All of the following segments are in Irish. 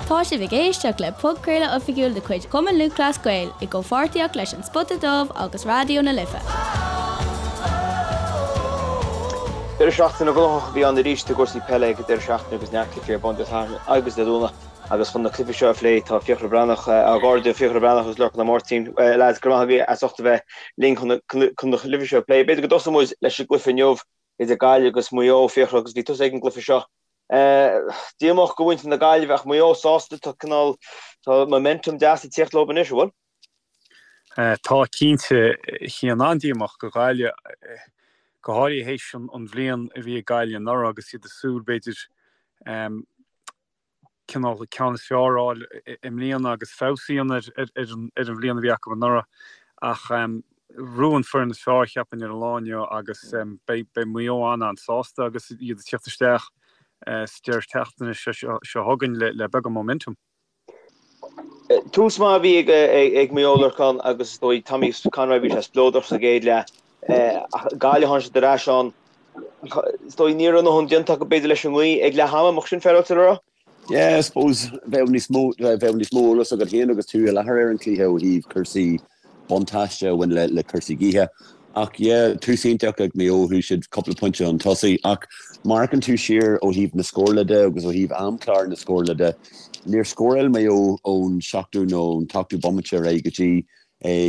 Tá sibh ag éisteacht le podchraoladh oifigiúil de chuid Chumann Lúthchleas Gael i gcomhpháirtíocht leis An Spota Dubh agus Raidió na Life. Deireadh seachtaine gnóthach a bhí ann arís i gcúrsaí peile ag an deireadh seachtaine agus neart cluichí ar bun Dé Sathairn agus Dé Domhnaigh agus chun na cluichí seo a phlé tá Fiachra Breathnach, ár gcairde Fiachra Breathnach agus Lorcán Ó Máirtín. Lads, go raibh maith agaibh as ucht a bheith linn chun na cluichí seo a phlé. B'fhéidir go dtosóidh muid leis an gcluiche inniu idir Gaillimh agus Maigh Eo, Fiachra, agus bhí tusa ag an gcluiche seo. Díomách do mhuintir na Gaillimhe ach Maigh Eo sásta, tá cineál, tá momentum deas ag tíocht leo anois, an bhfuil? Tá cinnte, Cian, an-díomách do Ghaillimh, go háirithe théis an bhliain a bhí ag Gaillimh anuraidh agus iad ag súil, b'fhéidir, cineál ceann is fearr a fháil i mbliana agus feabhas a dhéanamh ar an bhliain a bhí acu anuraidh. Ach bhuaigh an foireann is fearr, cheapfainn, ar an lá inniu agus beidh Maigh Eo an-an-sásta agus iad ag tíocht isteach sa deireadh seachtaine seo chugainn le beagán momentum. Tús maith a bhí ag Maigh Eo, Lorcán, agus is dóigh Tommy Conroy, bhí sé spleodrach sa gcéad leath. Ach Gaillimh tháinig siad ar ais ann. Is dóigh ní raibh a ndóthain déanta acu b'fhéidir leis an ngaoth ag leath ama, an mbeadh sin féaráilte le rá? Yeah, I suppose bheadh níos mó, bheadh níos mó eolas agat féin agus tú i láthair ar an cluiche ó thaobh cúrsaí buntáiste a bhain le le cúrsaí gaoithe. Ach yeah, tús iontach ag Maigh Eo, chuaigh siad cúpla pointe chun tosaigh. Ach má amharcann tú siar ó thaobh na scórála de agus ó thaobh amchlár na scórála de, níor scóráil Maigh Eo ón seachtú nó ón t-ochtú bomaite ar aghaidh go dtí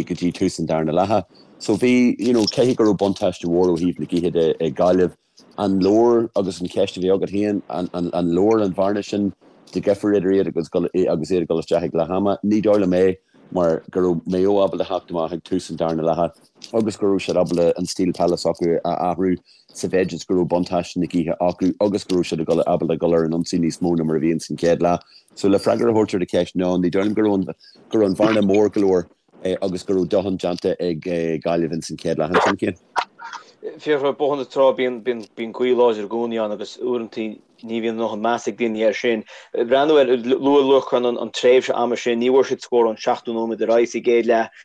go dtí tús an darna leatha. So bhí, you know, caithfidh go raibh buntáiste mhór ó thaobh na gaoithe de ag Gaillimh. An leor, agus an cheist a bhí agat féin, an leor an bhearna sin de dhifear idir iad agus agus iad ag dul isteach ag leath ama? Ní dóigh liom é mar go raibh Maigh Eo ábalta theacht amach ag tús an darna leatha agus go raibh siad ábalta an stíl peile s'acu a athrú sa mhéid is go raibh buntáiste na gaoithe acu agus go raibh siad ábalta dul ar an ionsaí níos mó ná mar a bhí ins an chéad leath. So le freagra a thabhairt ar do cheist, no, ní dóigh liom go raibh an go raibh an bhearna mór go leor agus go raibh dóthain déanta ag Gaillimh ins an chéad leath ansin, Cian. Fiachra, Bóthar na Trá, bíonn bíonn gaoth láidir i gcónaí ann agus uaireanta ní bhíonn a ndóthain meas ag daoine air sin. Breathnú ar, luaigh Lorcán an tréimhse ama sin, ní bhfuair siad scór ón seachtú nóiméad ar aghaidh sa gcéad leath.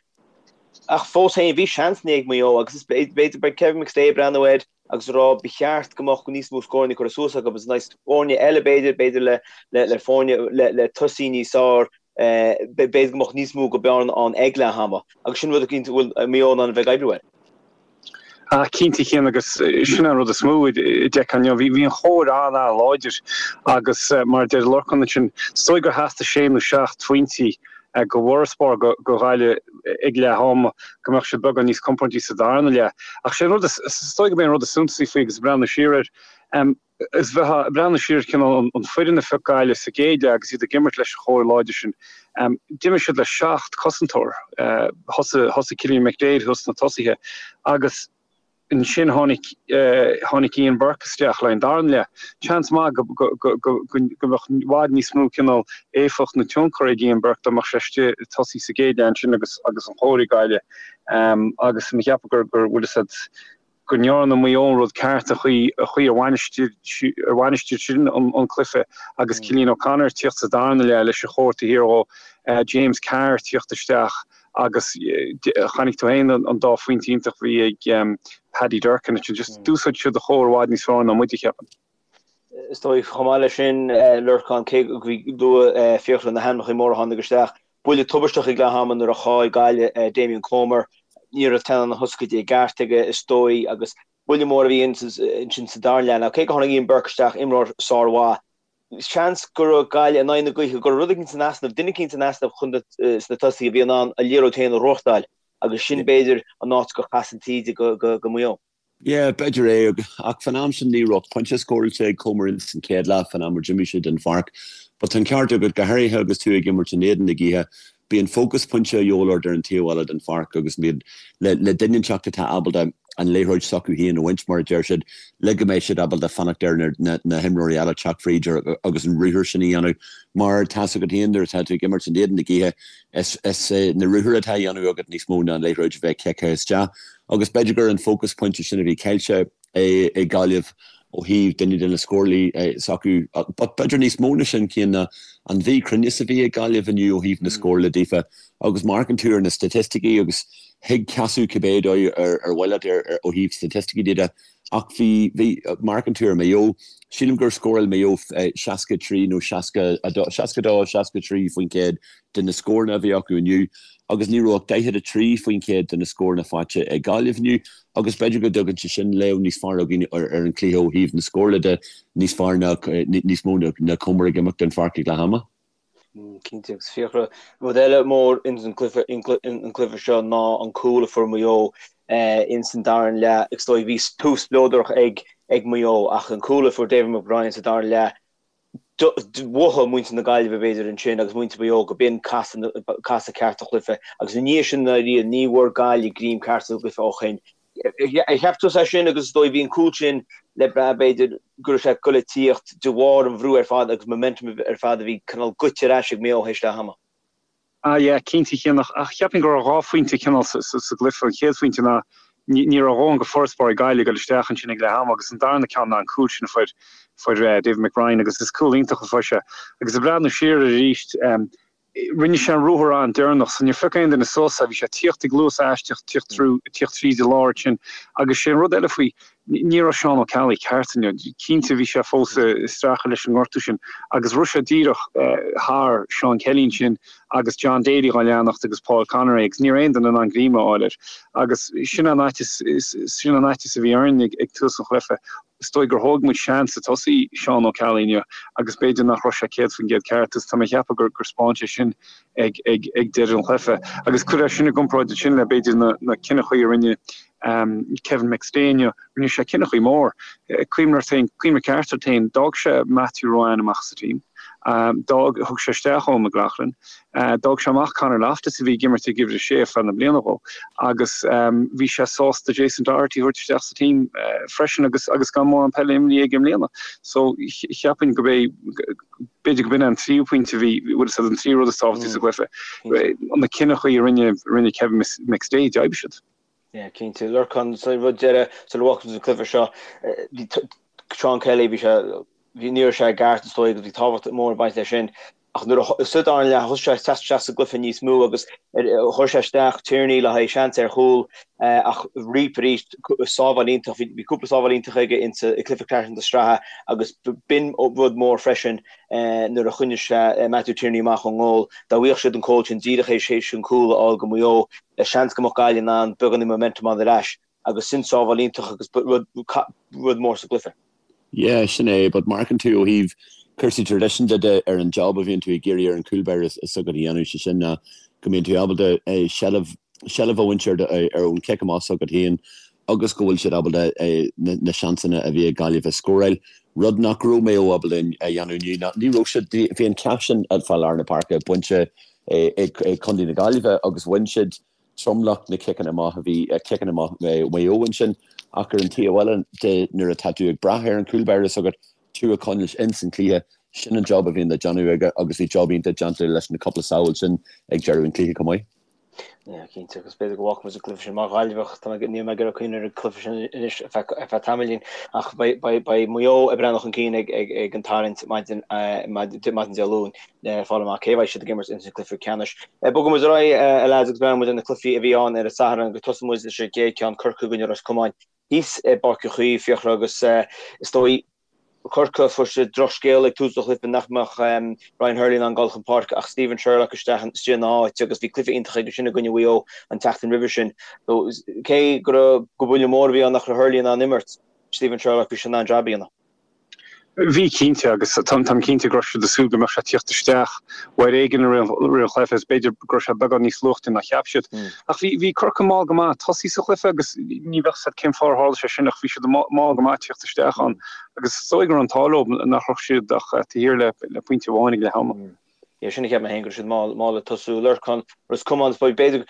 Ach fós féin, bhí seansanna ag Maigh Eo agus is b'fhéidir beidh Kevin McStay ag breathnú air agus ag rá ba cheart go mbeadh níos mó scóranna curtha suas acu agus in aghaidh foirne eile b'fhéidir, b'fhéidir le le foirne le le tosaí níos fearr, b'fhéidir go mbeadh níos mó go bearna ann ag leath ama agus sin rud eicínt a bhfuil Maigh Eo in ann a bheith ag oibriú air. Ah, cinnte, Cian, agus sin an rud is mó a d'fheicfeá inniu. Bhí an chóir an-an-láidir agus mar a deir Lorcán ansin, is dóigh gur theastaigh sé nó seacht phointí go bhfarasbarr go Ghaillimh ag leath ama, go mbeadh siad beagán níos compórdaí sa darna leath. Ach sé an rud is, is dóigh gurb é an rud is suntasaí faoi agus ag breathnú siar air, is bheifeá ag breathnú siar ar chineál an foireann a phioc Gaillimh sa gcéad leath agus iad ag imirt leis an chóir láidir sin, d'imir siad le seacht cosantóir. Thosaigh, thosaigh Cillian McDaid thuas sna tosaithe agus ansin tháinig, tháinig Ian Burke isteach le an darna leath. Seans maith go, go, go, go, go mbeadh i bhfad níos mó cineál éifeacht nó tionchar ag Ian Burke dá mbeadh sé istigh ag tosaí sa gcéad leath ansin agus, agus an chóir ag Gaillimh. Agus mo cheapadh gur, gur, bhfuil fhios a'd, go ndearna Maigh Eo an rud ceart an chaoi a chaoi ar bhainistigh ar bhainistigh siad an cluiche agus Cillian O'Connor ag tíocht sa darna leath leis an chóir taobh thiar dhó, James Carr ag tíocht isteach agus chonaic tú féin an dá phointe iontach a bhí ag Paddy Durcan ansin. Just d'úsáid siad an chóir i bhfad níos fearr ná muide, cheapfainn. Is dóigh, chomh maith leis sin, Lorcán, cé go luaigh Fiachra na hainmneacha móra a tháinig isteach, buille tubaisteach ag leath ama nuair a chaill Gaillimh Damien Comer. Ní raibh teannán na hioscaide i gceart aige, is dóigh, agus buille mór a bhí ansin sa darna leath. Now, cé go tháinig Ian Burke isteach, imreoir sármhaith, seans go raibh Gaillimh in aghaidh na gaoithe, go raibh rud éicint in easnamh, duine éicint in easnamh chun sna tosaithe a bhí in ann an liathróid féin a ghnóthachtáil agus sin, b'fhéidir, an áit gur chas an taoide go Maigh Eo. Yeah, b'fhéidir é, ach fán am sin ní raibh ach pointe scóráilte ag Comer ins an chéad leath fán am ar d'imigh sé den pháirc. But tá an ceart agat, go háirithe agus tú ag imirt in éadan na gaoithe, bíonn focus pointe a dhíobháil ort ar an taobh eile den pháirc agus bíonn le le duine inteacht atá ábalta an liathróid s'acu féin a bhaint, mar a deir siad, le go mbeidh siad ábalta fanacht ar na na himreoirí eile teacht fríd agus an ruathar sin a dhéanamh. Mar tá's agat féin nuair atá tú ag imirt in éadan na gaoithe, is is na ruathair atá á dhéanamh agat níos mó ná an liathróid a bheith ciceáilte isteach. Agus b'fhéidir gur an focus pointe sin a bhí caillte ag Gaillimh ó thaobh duine de na scórálaí s'acu. But b'fhéidir níos mó na sin, Cian, ná an mhíchruinneas a bhí ag Gaillimh inniu ó thaobh na scórála daofa. Agus má amharcann tú ar na staitisticí agus thig casadh cibé dóigh ar mhaith leat ó thaobh staitisticí de. Ach bhí, bhí, má amharcann tú ar Maigh Eo, sílim gur scóráil Maigh Eo 63 nó 62, 62, 63% de na scóranna a bhí acu inniu agus ní raibh ach 43% de na scóranna faighte ag Gaillimh inniu agus b'fhéidir go dtugann sé sin léamh níos fearr againn ar an chluiche ó thaobh na scórála de, níos fearr ná, níos mó ná cuma ag imeacht den pháirc ag leath ama. Cinnte, agus Fiachra, rud eile mór ins an gcluiche, an cluiche seo ná an cúl a fuair Maigh Eo ins an dara leath. Is dóigh bhí tús spleodrach ag ag Maigh Eo ach an cúl a fuair David McBrien sa dara leath, mhothaigh muintir na Gaillimhe b'fhéidir ansin agus muintir Mhaigh Eo go b'in casadh casadh ceart an chluiche agus i ndiaidh sin dáiríre ní bhfuair Gaillimh greim ceart sa gcluiche ó shin. Ar cheap tusa é sin agus is dóigh bhí an cúl sin le brath b'fhéidir go raibh sé ag goil ag tíocht de bharr an bhrú ar fad agus momentum ar fad a bhí cineál goite ar ais ag Maigh Eo théis leath ama. Ah yeah, cinnte Cian, ach cheapfainn go raibh 2 phointe cineál sa gcluiche. An chéad phointe ná ní raibh a dhóthain de farasbarr ag Gaillimh ag dul isteach ansin ag leath ama agus an darna ceann ná an cúl sin a fuair fuair David McBrien agus is cúl iontach a fuair sé. Agus ag breathnú siar air arís, Rinne sé an ruathar an-deireanach so níor phioc aon duine suas é. Bhí sé ag tíocht ag luas aisteach, tíocht through, tíocht tríd an lár ansin. Agus sé an rud eile faoi, ní raibh Seán Ó Ceallaigh ceart inniu. Cinnte bhí sé fós ag streachailt leis an ngortú sin agus rith sé díreach thar Seán Kelly ansin agus John Daly dhá leanacht agus Paul Conroy agus ní raibh aon duine in ann greim a fháil air. Agus sin an fhaitíos, sin an fhaitíos a bhí orainn ag tús an chluiche. Is dóigh gur thóg muid seans ag tosaí Seán Ó Ceallaigh inniu agus b'fhéidir nach raibh sé 100% ceart agus tá mé ag ceapadh gur 'spáin sé sin ag deireadh an chluiche. Agus cuir é sin i gcomparáid ansin le b'fhéidir na cinneachaí a rinne Kevin McStay inniu. Rinne sé cinneachaí mór. Cuimhnigh ort féin, cuimhnigh ceart ort féin, d'fhág sé Matthew Ruane amach sa team. D'fhág, thug sé isteach Eoin McLaughlin. D'fhág sé amach Conor Loftus a bhí ag imirt ag uimhir a sé ar feadh na bliana dhó agus bhí sé sásta Jason Doherty a thabhairt isteach sa team freisin agus agus gan mórán peile imrithe aige i mbliana. So cheapfainn go b'é b'fhéidir go b'in an tríú pointe a bhí bhfuil fhios agat an tríú rud is tábhachtaí sa gcluiche. Na cinneachaí a rinne rinne Kevin McStay d'oibrigh siad. Yeah, cinnte. Lorcán, sa rud deireadh, sula bhfágfaidh muid an cluiche seo, bhí Seán Kelly, bhí sé, bhí, ní raibh sé i gceart is dóigh agus bhí tábhacht mór ag baint leis sin. Ach nuair a, sa dara leath, thosaigh sé ag teacht isteach sa gcluiche níos mó agus chuir sé isteach Tierney le haghaidh seans ar chúl ach Reape arís, sábháil iontach, bhí cúpla sábháil iontach aige insa cluiche ceannais na sraithe agus b'in rud mór freisin nuair a choinnigh sé Matthew Tierney amach ón ngól. Dá bhfaigheadh siad an cúl sin díreach théis an cúl a fháil go Maigh Eo, seans go mbeadh Gaillimh in ann beagáinín momentum a fháil ar ais agus sin sábháil iontach agus rud mór sa gcluiche. Yeah, sin é, but má amharcann tú ó thaobh cúrsaí traidisiúnta de ar an job a bhíonn tú ag iarraidh ar an chúl báire s'agat a dhéanamh, sé sin ná go mbíonn tú ábalta seilbh, seilbh a bhaint ar ar ón cic amach s'agat féin agus go bhfuil siad ábalta na seansanna a bhí ag Gaillimh a scóráil, rud nach raibh Maigh Eo ábalta a dhéanamh inniu. Ná ní raibh siad, bhí an ceacht sin fá lár na páirce bainte ag Contae na Gaillimhe agus bhain siad tromlach na ciceanna amach a bhí ciceanna amach Mhaigh Eo ansin ach ar an taobh eile de nuair atá tú ag brath ar an chúl báire s'agat tú a choinneáil ins an chluiche, sin an job a bhíonn le déanamh aige agus bhí job iontach déanta leis na cúpla sábháil sin ag deireadh an chluiche chomh maith. Yeah, cinnte, agus b'fhéidir go bhfágfaidh muid an cluiche sin mar Ghaillimheach, tá mé, níl mé ag iarraidh cuimhneamh ar an cluiche sin anois ar feadh, ar feadh tamaillín, ach beidh, beidh, beidh Maigh Eo ag breathnú chun cinn ag, ag, ag an tarraingt maidin, maidin, maidin Dé Luain le fáil amach cé a bheidh siad ag imirt ins an cluiche ceannais. Bogfaidh muid ar aghaidh, a lads, agus breathnóidh muid ar na cluichí a bhí ann ar an Satharn agus tosóidh muid leis an gcéad ceann, Corcaigh i gcoinne Ros Comáin thíos i bPáirc Uí Chaoimh, Fiachra, agus is dóigh, Corcaigh, fuair siad drochscéal ag tús an chluiche nach mbeadh Ryan Hurley in ann dul chun páirce ach Stephen Sherlock isteach istigh ina áit agus bhí cluiche iontach aige sin i gcoinne Mhaigh Eo an tseachtain roimhe sin. So, cé go raibh gur buille mór a bhí ann nach raibh Hurley in ann imirt, Stephen Sherlock, bhí sé in ann jab a dhéanamh. Bhí, cinnte, agus táim cinnte go raibh siad ag súil go mbeadh sé ag tíocht isteach uair éigin i rith an chluiche agus b'fhéidir go raibh sé beagán níos luaite ná cheap siad. Ach bhí, bhí Corcaigh mall go maith ag tosaí sa chluiche agus ní bheadh 's a'd cén fáth ar tharla sé sin ach bhí siad mall go maith ag tíocht isteach ann agus is dóigh go raibh an t-ádh leo nach raibh siad ach taobh thiar le, le pointe amháin ag leath ama. Yeah, sin a cheap mé féin go raibh siad mall, mall ag tosú. Lorcán, Ros Comáin, b'fhéidir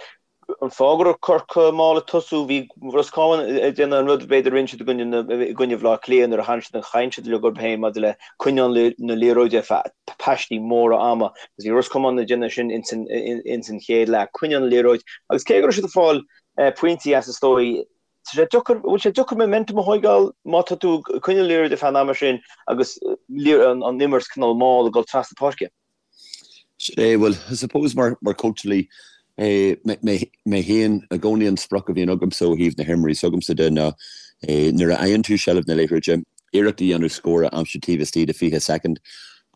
An fáth go raibh Corcaigh mall ag tosú, bhí Ros Comáin ag déanamh an rud b'fhéidir a rinne siad i gcoinne Bhaile Átha Cliath nuair a tharraing siad an chaint siad uilig orthu féin maidir le coinneáil na liathróide ar feadh paistí móra ama agus bhí Ros Comáin ag déanamh sin ins an chéad leath, coinneáil na liathróid agus cé go raibh siad ag fáil pointí as is dóigh, tá sé deacair, bhfuil sé deacair momentum a thóigeáil má tá tú ag coinneáil liathróid ar feadh an ama sin agus an imirt cineál mall ag dul trasna páirce. Sin é, bhuel, I suppose mar mar cóitseálaí mé féin i gcónaí an sprioc a bhíonn agamsa ó thaobh na himreoirí s'agamsa de ná. Nuair a fhaigheann tú seilbh na liathróide, iarracht a dhéanamh scór a aimsiú taobh istigh de 20 soicind.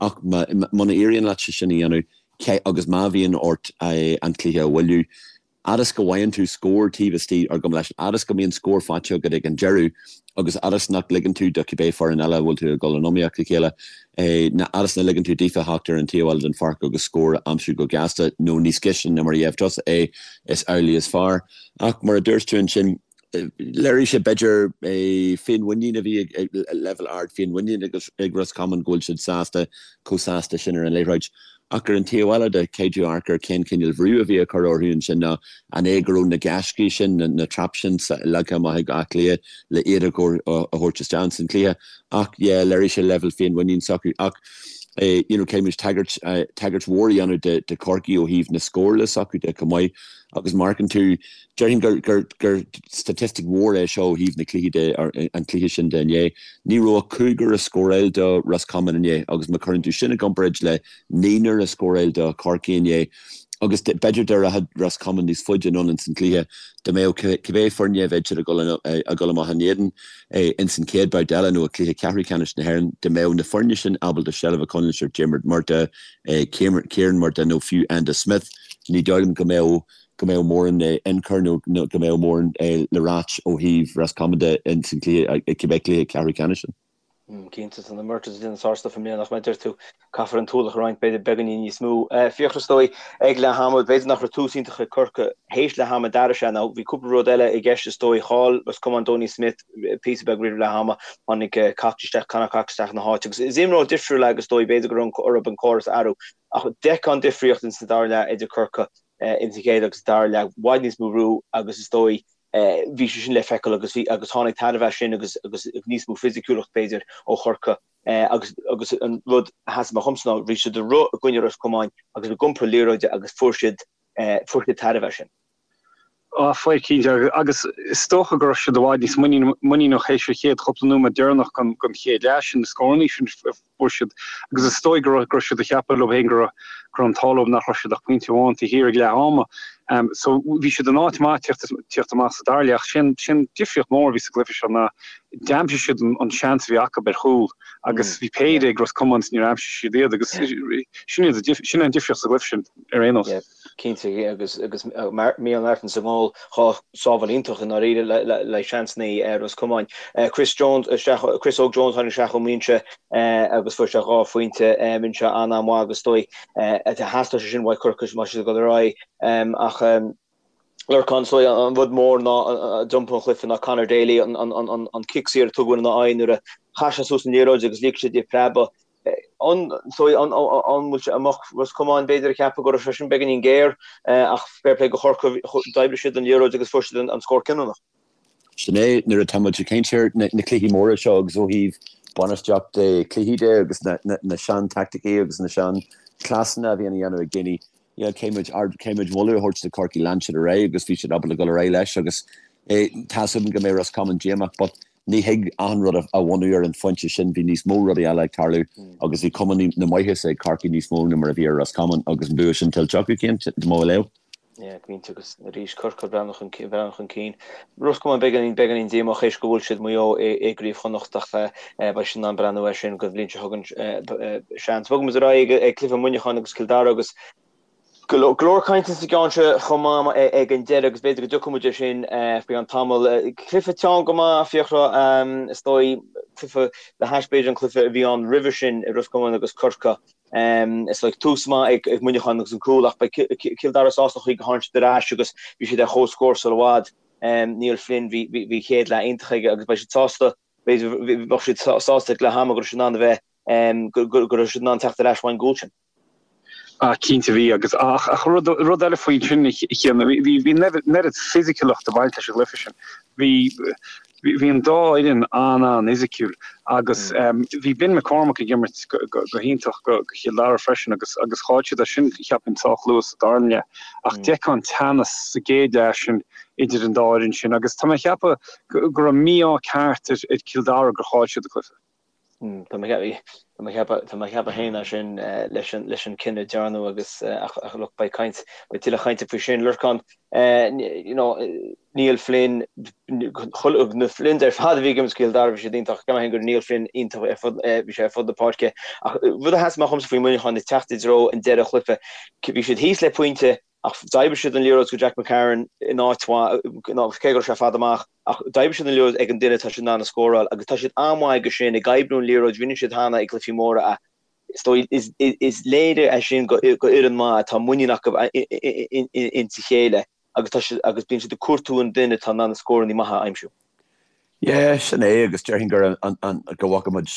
Ach muna éiríonn leat sé sin a dhéanamh, agus má bhíonn ort an cluiche a bhailiú, fhad is go bhfaigheann tú scór taobh istigh, or gabh mo leithscéal, fhad is go mbíonn scór faighte agat ag an deireadh, agus fhad is nach ligeann tú do cibé foireann eile a bhfuil tú ag dul in iomaíocht le chéile, fhad is nach ligeann tú daofa theacht ar an taobh eile den pháirc agus scór a aimsiú go gasta, nó níos gaiste ná mar a gheibh tusa é, is amhlaidh is fearr. Ach mar a dúirt tú ansin, Léirigh sé, b'fhéidir, féinmhuinín a bhí ag leibhéal ard féinmhuinín ag Ros Comáin go bhfuil siad sásta, chomh sásta sin ar an liathróid. Ach ar an taobh eile de, caithfidh tú amharc ar cén cineál bhrú a bhí á chur orthu ansin nó an é go raibh na gaiscí sin, na traps sin leagtha amach ag Áth Cliath le iad a thabhairt isteach ins an chluiche. Ach yeah, léirigh sé leibhéal féinmhuinín s'acu. Ach you know, caithfidh muid tagairt, tagairt mhór a dhéanamh de Chorcaigh ó thaobh na scórála s'acu de chomh maith agus má amharcann tú, Déarfainn gur, gur, gur staitistic mhór é seo ó thaobh na cluichí de, an cluiche sin de inné. Ní raibh ach cúigear ag scóráil do Ros Comáin inné agus má chuireann tú sin i gcomparáid le naonúr ag scóráil do Chorcaigh inné agus b'fhéidir dá rachadh Ros Comáin níos faide anonn ins an cluiche, dá mbeadh cibé foirne a bheadh siad ag dul, ag dul amach in éadan ins an chéad babhta eile nó i cluiche ceathrú ceannais na hÉireann, dá mbeadh na foirne sin ábalta seilbh a choinneáil ar Diarmuid Murtagh, Kieran Murtagh nó fiú Enda Smith, ní dóigh liom go mbeadh go mbeadh mórán ionchur nó go mbeadh mórán le ráit ó thaobh Ros Comáin de ins an cluiche, cibé cluiche ceathrú ceannais sin. Cinnte, tá na Murtaghs ag déanamh sár-stuif i mbliana ach mar a deir tú, caithfear an t-ualach a roinnt, b'fhéidir beagáinín níos mó. Fiachra is dóigh ag leath ama, b'fhéidir nach raibh tús iontach ag Corcaigh théis leath ama d'athraigh sé nó bhí cúpla rud eile i gceist is dóigh. Chaill Ros Comáin Donie Smith píosa beag roimh leath ama, tháinig Cox isteach, Conor Cox isteach ina háit agus is imreoir difriúil é agus is dóigh b'fhéidir go raibh orthu an córas a athrú ach d'fheicfeá an difríocht ins an dara leath idir Corcaigh ins an chéad agus dara leath, i bhfad níos mó brú agus is dóigh bhí sé sin le feiceáil agus bhí agus tháinig tairbhe as sin agus agus níos mó fisiciúlacht b'fhéidir ó Chorcaigh agus agus an rud a sheas amach dhomsa ná bhí siad ag rith i gcoinne Ros Comáin agus ag iompar liathróide agus fuair siad fuair siad tairbhe as sin. Á, fuair cinnte agus is dócha go raibh siad i bhfad níos muiníneach théis an chéad chúpla nóiméad deireanach den chéad leath sin, na scórannaí sin a fuair siad agus is dóigh go raibh siad ag ceapadh leo féin go raibh an t-ádh leo nach raibh siad ach pointe amháin taobh thiar ag leath ama. So bhí siad in áit maith tíocht amach sa dara leath ach sin sin difríocht mór a bhí sa gcluiche seo ná d'aimsigh siad an seans a bhí acu ar chúl agus bhí péire ag Ros Comáin is níor aimsigh siad iad agus sin sin an difríocht sa gcluiche sin ar aon nós. Cinnte, agus Micheál Martin sa ngól, 2 sábháil iontach i ndáiríre le seansanna Ros Comáin. Chris Jones isteach, Chris Óg Jones tháinig isteach ón mbinse agus fuair sé 2 phointe. Rinne sé an-an-mhaith agus is dóigh theastaigh sé sin uaidh Corcaigh má tá siad ag dul ar aghaidh. Ach Lorcán, is dóigh an rud mór ná a d'iompaigh an cluiche ná Conor Daly, an cic saor a tugadh ina aghaidh nuair a chaith sé suas an liathróid agus lig sé di preabadh. An bhfuil sé amach Ros Comáin b'fhéidir ag ceapadh go raibh sé sin beagáinín géar ach fair play do Chorcaigh, d'oibrigh siad an liathróid agus fuair siad an scór cinniúnach. Sin é, nuair atá muid ag caint ar na cluichí móra seo agus ó thaobh bainistíocht cluichí de agus na sean-taicticí agus na sean-chleasanna a bhíonn á dhéanamh ag daoine, yeah, caithfidh muid, caithfidh muid moladh a thabhairt do Chorcaigh, lean siad ar aghaidh agus bhí siad ábalta dul ar aghaidh leis agus tá's agam go mbeidh Ros Comáin díomách but Ní thig achan rud a bhunú ar an phointe sin, bhí níos mó rudaí eile ag tarlú agus bhí cuma na maitheasa ag Corcaigh níos mó ná mar a bhí ar Ros Comáin agus an bua sin tuillte acu, cinnte, mo léamh. Yeah, cinnte agus arís Corcaigh ag breathnú chun breathnú chun cinn. Ros Comáin beagáinín beagáinín díomách théis go bhfuil siad Maigh Eo i gCraobh Chonnacht ach beidh siad in ann breathnú air sin don bhliain seo chugainn seans. Bogfaidh muid ar aghaidh ag cluiche Muineacháin agus Cill Dara agus Go leor cainte sa gceann seo chomh maith ag an deireadh agus b'fhéidir go dtiocfaidh muid air sin faoi cheann tamaill. Cluiche teann go maith, Fiachra, is dóigh, cluiche le hais b'fhéidir an cluiche a bhí ann roimhe sin i Ros Comáin agus Corcaigh. Is dóigh tús maith ag Muineachán agus an cúl ach beidh Cill Dara sásta an chaoi gur tháinig siad ar ais agus bhí siad ar chomhscór sula i bhfad. Niall Flynn, bhí chéad leath iontach aige agus beidh siad sásta, b'fhéidir, bheadh siad sásta ag leath ama go raibh siad in ann a bheith, go raibh siad in ann teacht ar ais ón gcúl sin. Ah, cinnte bhí agus ach ach rud rud eile faoi sin a Chian, bhí bhí an oiread fisiciúlacht ag baint leis an gcluiche sin. Bhí bhí an dá fhoireann an-an-fhisiciúil agus bhí Ben McCormack ag imirt go go go hiontach go go Chill Dara freisin agus agus chaill siad é sin cheapfainn sách luath sa dara leath. Ach d'fheicfeá an teannas sa gcéad leath sin idir an dá fhoireann sin agus tá mé ag ceapadh go go raibh mí-ádh ceart ar ar Chill Dara gur chaill siad an cluiche. Tá mé ag. Tá mé ag ceapadh féin é sin leis an leis an cinneadh a dearnadh agus ach look beidh caint, beidh tuilleadh cainte faoi sin. Lorcán, you know, Niall Flynn, na Flynns ar fad a bhí ag imirt do Chill Dara, bhí siad iontach, ceapaim féin go raibh Niall Flynn iontach ar fud, bhí sé ar fud na páirce. Ach rud a sheas amach dhomsa faoi Mhuineachán ag teacht i dtreo an deireadh chluiche, bhí siad thíos le pointe ach d'oibrigh siad an liathróid go Jack McCarron in áit mhaith, cé go raibh sé fada amach, ach d'oibrigh siad an liathróid ag an duine atá siad in ann a scóráil agus tá siad an-mhaith aige sin, ag oibriú an liathróid, rinne siad cheana i gcluichí móra é. Is dóigh, is léir é sin go fhoireann maith atá muinín acu insa chéile agus tá siad, agus bíonn siad ag cuartú an duine atá in ann na scóranna maithe a aimsiú. Yeah, sin é agus déarfainn gur an, go bhfaca muid,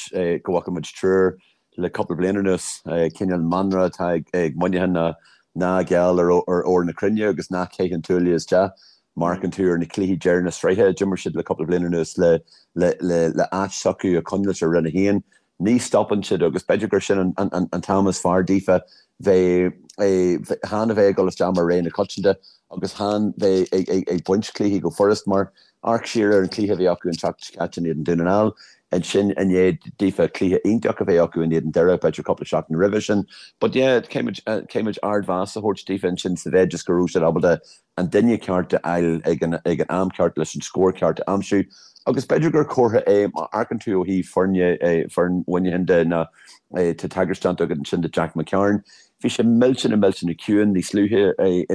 go bhfaca muid triúr le cúpla bliain anuas, cineál mantra atá ag Muineachán ná ná geall ar ór na cruinne agus ná caith an tuaille isteach. Má amharcann tú ar na cluichí deireadh na sraithe a d'imir siad le cúpla bliain anuas le le áit s'acu a choinneáilt ar Roinn 1, ní stopann siad agus b'fhéidir gur sin an t-am is fearr daofa bheith chan a bheith ag dul isteach mar rogha na coitianta agus chan bheith ag baint cluichí go furast mar amharc siar ar an cluiche a bhí acu an tseachtain seo caite in éadan Dún na nGall ansin i ndiaidh daofa cluiche iontach a bheith acu in éadan Doire b'fhéidir cúpla seachtain roimhe sin. But yeah caithfidh muid ardmheas a thabhairt daofa ansin sa mhéid is go raibh siad ábalta an duine ceart a fháil ag an ag an am ceart leis an scór ceart a aimsiú agus b'fhéidir gur comhartha é má amharcann tú ó thaobh foirne foireann Mhuineacháin de ná tá tagairt déanta agat ansin do Jack McCarron. Bhí sé millteanach millteanach ciúin níos luaithe i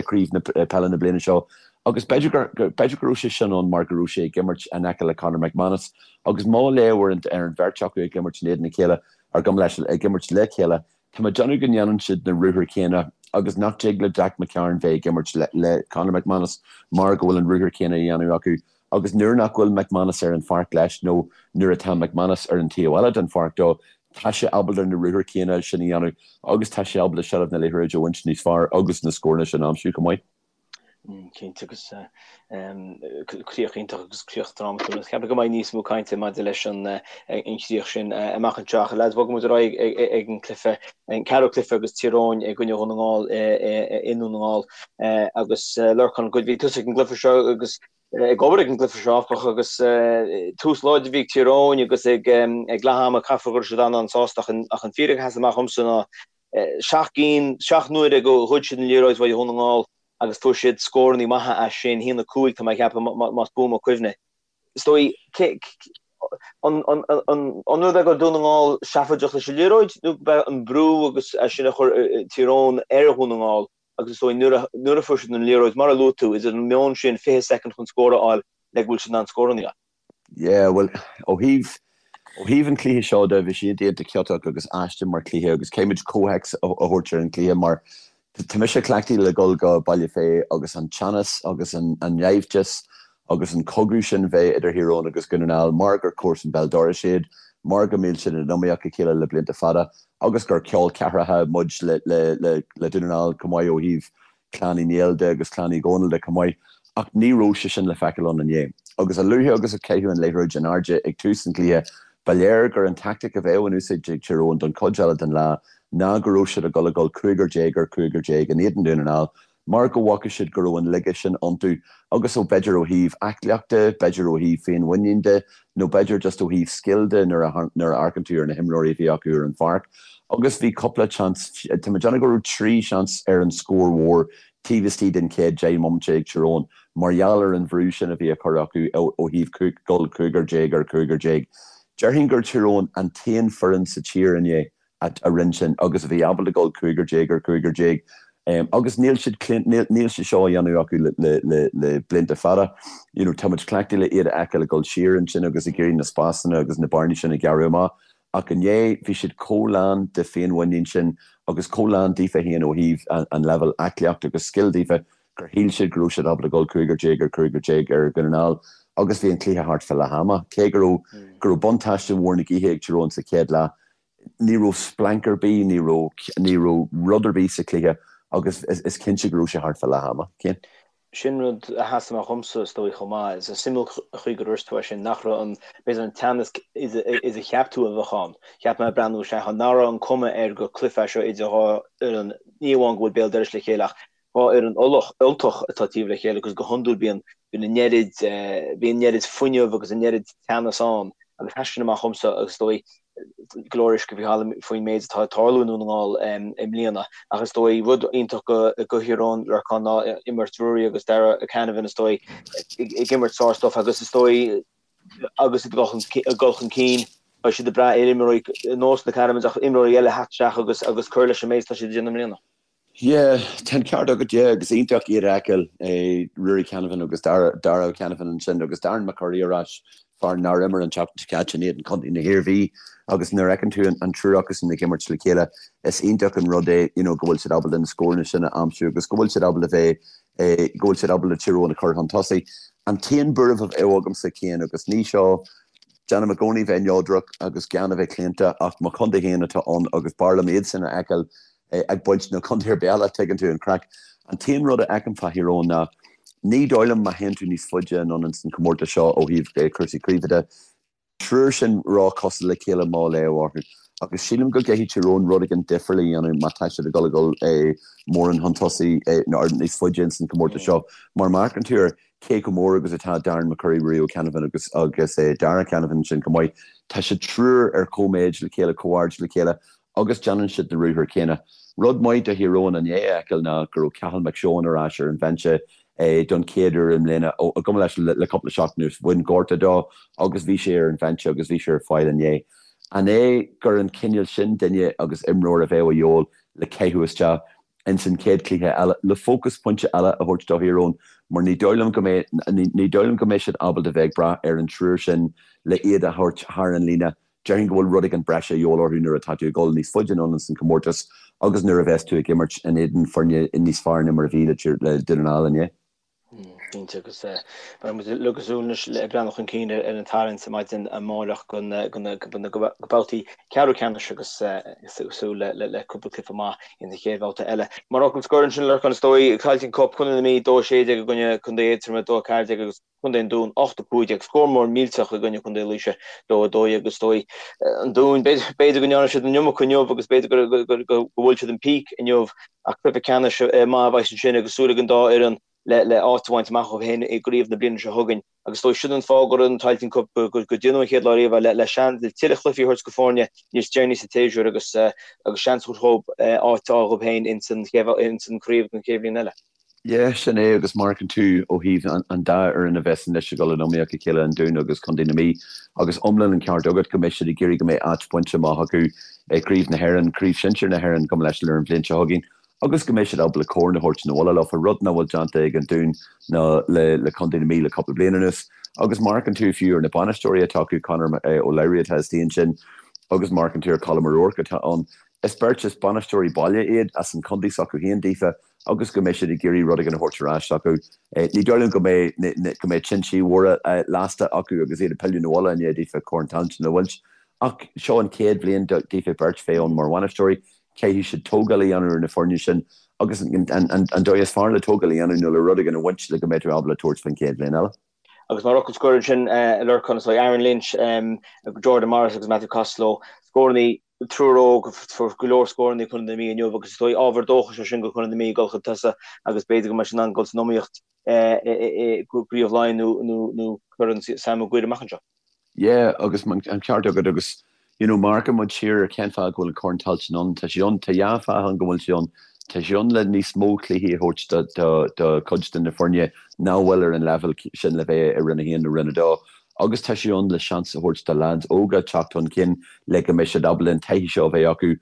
gcraobh na peile na bliana seo agus b'fhéidir gur b'fhéidir go raibh sé sin ann mar go raibh sé ag imirt in aice le Conor McManus agus má léamh ar an ar an bheirt acu ag imirt in éadan a chéile ar gabh mo leithscéal ag imirt le chéile Tá mé ag déanamh go ndéanann siad na ruathair céanna agus nach dtig le Jack McCarron bheith ag imirt le Conor McManus mar go bhfuil an ruathar céanna á dhéanamh acu agus nuair nach bhfuil McManus ar an pháirc leis nó nuair atá McManus ar an taobh eile den pháirc dó, tá sé ábalta na ruathair céanna sin a dhéanamh agus tá sé ábalta seilbh na liathróide a bhaint níos fearr agus na scóranna sin a aimsiú chomh maith. Cinnte agus críoch iontach agus críoch drámatúil. Ceapaim go mbeidh níos mó cainte maidir leis an chríoch sin amach anseo. Ach lads, bogfaidh muid ar aghaidh ag an cluiche, an ceathrú cluiche agus Tír Eoghain i gcoinne Dhún na nGall i nDún na nGall. Agus Lorcán, bhí tusa ag an gcluiche seo agus ag obair ag an gcluiche seo áfach agus tús láidir a bhí ag Tír Eoghain agus ag leath ama caithfear go raibh siad an-an-sásta ach an fíric a sheas amach dhomsa ná 7 gcinn, 7 n-uaire go ghoid siad an liathróid uaidh Dhún na nGall agus fuair siad scórannaí maithe as sin, 1-5 tá mé ag ceapadh más buan mo chuimhne. Is dóigh, an rud é go raibh Dún na nGall seafóideach leis an liathróid nó go b'é an brú agus é sin a chuir Tír Eoghain ar Dhún na nGall agus is dóigh nuair a fuair siad an liathróid, mar a luaigh tú, idir an meon sin 20 soicind chun scór a fháil le go bhfuil siad in ann scórannaí a fháil. Yeah, bhuel, ó thaobh, ó thaobh an chluiche seo de, bhí sé iontach ciotach agus aisteach mar chluiche agus caithfimid comhthéacs a thabhairt ar an chluiche mar tá mise cleachtaithe le dhul go Baile Féith agus an teannas agus an naimhdeas agus an cogadh sin bheith idir Thír Eoghain agus Dhún na nGall mar gur comharsan béal dorais iad, mar go mbíonn siad in iomaíocht a chéile le blianta fada agus gur col ceathracha muid le, le, le, le Dún na nGall chomh maith ó thaobh Clann Uí Néill de agus Clann Uí Dhónaill de chomh maith, ach ní raibh sé sin le feiceáil ann inné. Agus a luaithe agus a caitheadh an liathróid in airde ag tús an chluiche, ba léir gur an tactic a bheadh in úsáid ag Tír Eoghain don chuid eile den lá ná go raibh siad ag dul a dhul cúigear déag ar chúigear déag in éadan Dhún na nGall mar go bhfaca siad go raibh an laige sin iontu agus ó b'fhéidir ó thaobh aclaíochta, b'fhéidir ó thaobh féinmhuinín de nó b'fhéidir just ó thaobh scil de nuair a nuair a amharcann tú ar na himreoirí a bhí acu ar an pháirc. Agus bhí cúpla seans, tá mé ag déanamh go raibh 3 seans ar an scór mhór taobh istigh den chéad 10 mbomaite ag Tír Eoghain mar gheall ar an bhrú sin a bhí á chur acu ó thaobh dul cúigear déag ar chúigear déag. Déarfainn gur Tír Eoghain an t-aon foireann sa tír inné a rinne sin agus a bhí ábalta dul cúigear déag ar chúigear déag agus níl siad níl sé seo á dhéanamh acu le blianta fada. You know, tá muid cleachtaithe le iad a fheiceáil ag dul siar ansin agus ag iarraidh na spásanna agus na bearnaí sin a ghearradh amach ach inné bhí siad chomh lán de féinmhuinín sin agus chomh lán daofa féin ó thaobh an leibhéal aclaíochta agus scil daofa gur shíl siad go raibh siad ábalta dul cúigear déag ar chúigear déag ar Dhún na nGall agus bhí an cluiche thart fá leath ama. Cé go raibh go raibh buntáiste mhór na gaoithe ag Tír Eoghain sa chéad leath, ní raibh splanc ar bith, ní raibh ní raibh rud ar bith sa chluiche agus is cinnte go raibh sé thart fá leath ama. Cian? Sin rud a sheas amach dhomsa, is dóigh, chomh maith. Is suimiúil an chaoi gur dhúirt tú é sin, nach raibh an, b'fhéidir an teannas is a cheap tú a bheadh ann. Cheap mé ag breathnú isteach ann, nach raibh an cuma air gur cluiche é seo idir dhá fhoireann, ní amháin go bhfuil béal dorais le chéile ach 2 fhoireann Ultach atá taobh le chéile agus go hiondúil bíonn bíonn an oiread bíonn an oiread fuinneamh agus an oiread teannas ann agus sheas sin amach dhomsa agus is dóigh. Go leor uisce faoi thalamh faoin méid atá ag tarlú i nDún na nGall i mbliana ach is dóigh rud iontach do Thír Eoghain Lorcán ná imirt Ruairí agus Darragh Canavan is dóigh ag imirt sár-stuif agus is dóigh agus iad ag dul chun cinn beidh siad ag brath ar imreoirí ar nós na Canavans ach imreoirí eile a theacht isteach agus agus cur leis an méid atá siad ag déanamh i mbliana. Yeah, tá an ceart agat, yeah, agus iontach iad a fheiceáil, Ruairí Canavan agus Darragh Canavan ansin agus Darren McCurry ar ais, fear nár imir an tseachtain seo caite in éadan Chontae na hIarmhí agus nuair a fheiceann tú an triúr acusan ag imirt le chéile, is iontach an rud é, you know, go bhfuil siad ábalta na scóranna sin a aimsiú agus go bhfuil siad ábalta bheith, go bhfuil siad ábalta Tír Eoghain a chur chun tosaigh. An t-aon buaireamh a bheadh agamsa, Cian, agus ní seo, déanaim i gcónaí bheith neodrach agus gan a bheith claonta ach mo chontae féin atá ann agus b'fhearr liom iadsan a fheiceáil ag baint ná contae ar bith eile, tuigeann tú an craic. An t-aon rud a fheicim fá Thír Eoghain ná ní dóigh liom má théann tú níos faide anonn ins an chomórtas seo ó thaobh cúrsaí craoibhe de, triúr sin ró-chosúil le chéile mo léamh orthu. Agus sílim go gcaithfidh Tír Eoghain rud éigin difriúil a dhéanamh má tá siad ag dul a dhul mórán chun tosaigh nó níos faide ins an chomórtas seo. Mar má amharcann tú ar cé chomh mór agus atá Darren McCurry, Ruairí Canavan agus agus Darragh Canavan ansin chomh maith, tá siad triúr ar chomh-méid le chéile, chomh-aird le chéile agus déanann siad na ruathair céanna. Rud maith do Thír Eoghain inné a fheiceáil ná go raibh Cathal McShane ar ais ar an bhinse don chéad uair i mbliana, gabh mo leithscéal, le cúpla seachtain anuas. Bhain gortú dó agus bhí sé ar an bhinse agus bhí sé ar fáil inné. An é gur an cineál sin duine agus imreoir a bheadh a dhíobháil le caitheamh isteach ins an chéad chluiche eile le fócas pointe eile a thabhairt do Thír Eoghain mar ní dóigh liom go mbeidh ní dóigh liom go mbeidh siad ábalta bheith ag brath ar an triúr sin le iad a thabhairt thar an líne Déarfainn go bhfuil rud éigin breise a dhíobháil orthu nuair atá tú ag dul níos faide anonn ins an chomórtas agus nuair a bheas tú ag imirt in éadan foirne níos fearr ná mar a bhí le Dún na nGall inné. Cinnte, agus beidh muid uilig ag súil anois le breathnú chun cinn ar an tarraingt maidin amárach go na babhtaí ceathrú ceannais agus súil le cúpla cluiche maith in sa chéad bhabhta eile. Mar fhocal scoir ansin, Lorcán, is dóigh, Tailteann Cup, Contae na Mí 2-16 i gcoinne Contae Aontroma 2-14 agus Contae an Dúin 8 15, scór mór millteach i gcoinne Contae Laoise 2 12 agus is dóigh an Dún, b'fhéidir go ndearna siad an iomarca inniu agus b'fhéidir go bhfuil siad an peak inniu ach cluiche ceannais maith a bheas ansin agus súil ag an dá fhoireann le le áit a bhaint amach dóibh féin i gcraobh na bliana seo chugainn agus is dóigh sin an fáth go raibh an Tailteann Cup go déanadh an chéad lá riamh le le seans le tuilleadh cluichí a thabhairt go foirne níos deireanaí sa tséasúr agus agus seans a thabhairt dhóibh áit a fháil dhóibh féin ins an ins an chraobh don chéad bhliain eile. Yeah, sin é, agus má amharcann tú ó thaobh an dá fhoireann a bheas anois ag dul in iomaíocht a chéile, an Dún agus Contae na Mí, agus iomlán an ceart agat go mbeidh siad ag iarraidh go mbeidh áit bainte amach acu i gCraobh na hÉireann, Craobh Shinsir na hÉireann, gabh mo leithscéal, ar an bhliain seo chugainn, agus go mbeidh siad ábalta corn a thabhairt na bhaile leofa, rud nach bhfuil déanta ag an Dún ná le Contae na Mí le cúpla bliain anuas. Agus má amharcann tú fiú ar na bainisteoirí atá acu, Conor Ó Labhraí atá istigh ansin, agus má amharcann tú ar Colm O'Rourke atá ann, is beirt, is bainisteoirí baile iad as an chontae s'acu féin daofa, agus go mbeidh siad ag iarraidh rud éigin a thabhairt ar ais acu. Ní dóigh liom go mbeidh go mbeidh tintí mhóra lasta acu agus iad ag pilleadh na bhaile i ndiaidh daofa Corn Tailteann a bhaint. Ach seo an chéad bhliain daofa beirt bheith ann mar bhainisteoirí. Caithfidh siad tógáil a dhéanamh ar na foirne sin agus an dóigh is fearr le tógáil a dhéanamh ná le rud éigin a bhaint le go mbeidh tú ábalta tabhairt faoin chéad bhliain eile. Agus mar fhocal scoir ansin, Lorcán, is dóigh Aaron Lynch, Jordan Morris agus Matthew Costello, scórannaí triúr óg, fuair go leor scórannaí Contae na Mí inniu agus is dóigh ábhar dóchais é sin do Chontae na Mí ag dul chun tosaigh agus b'fhéidir go mbeidh siad in ann dul san iomaíocht i gCraobh Laighean nó Corn Sam Maguire amach anseo. Yeah, agus an ceart agat agus you know má amharcann muid siar ar cén fáth go bhfuil an Corn Tailteann ann, tá sé ann, tá dhá fáth ann go bhfuil sé ann, tá sé ann le níos mó cluichí a thabhairt do do do chuid de na foirne nach bhfuil ar an leibhéal sin le bheith i Roinn 1 nó Roinn 2 agus tá sé ann le seans a thabhairt do leaids óga teacht chun cinn le go mbeidh siad ábalta an taithí seo a bheith acu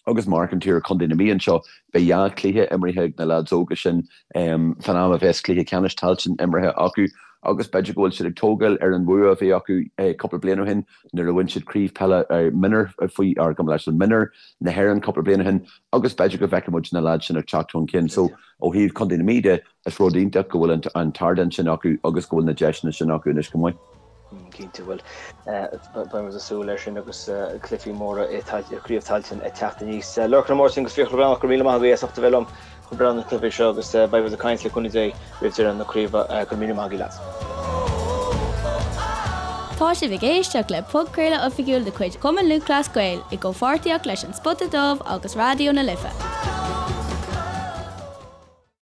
agus má amharcann tú ar Chontae na Mí anseo, beidh dhá chluiche imeartha ag na leaids óga sin fán am a bheas cluiche ceannais Tailteann imeartha acu agus b'fhéidir go bhfuil siad ag tógáil ar an bhua a bhí acu cúpla bliain ó shin nuair a bhain siad craobh peile mionúr faoi ar gabh mo leithscéal mionúr na hÉireann cúpla bliain ó shin agus b'fhéidir go bhfeicfidh muid na leaids sin ag teacht chun cinn. So ó thaobh Chontae na Mí de, Is rud iontach go bhfuil an t-ardán sin acu agus go bhfuil na deiseanna sin acu anois chomh maith. Cinnte, bhuel, beidh muid ag súil leis sin agus cluichí móra i gCraobh Tailteann ag teacht aníos. Lorcán Ó Máirtín agus Fiachra Breathnach, go raibh míle maith agaibh as ucht a bheith liom chun breathnú ar na cluichí seo agus beidh muid ag caint le cúnamh Dé roimh deireadh na craoibhe. Go raibh míle maith agaibh lads. Tá sibh ag éisteacht le podchraoladh oifigiúil de chuid Chumann Lúthchleas Gael i gcomhpháirtíocht leis An Spota Dubh agus Raidió na Life.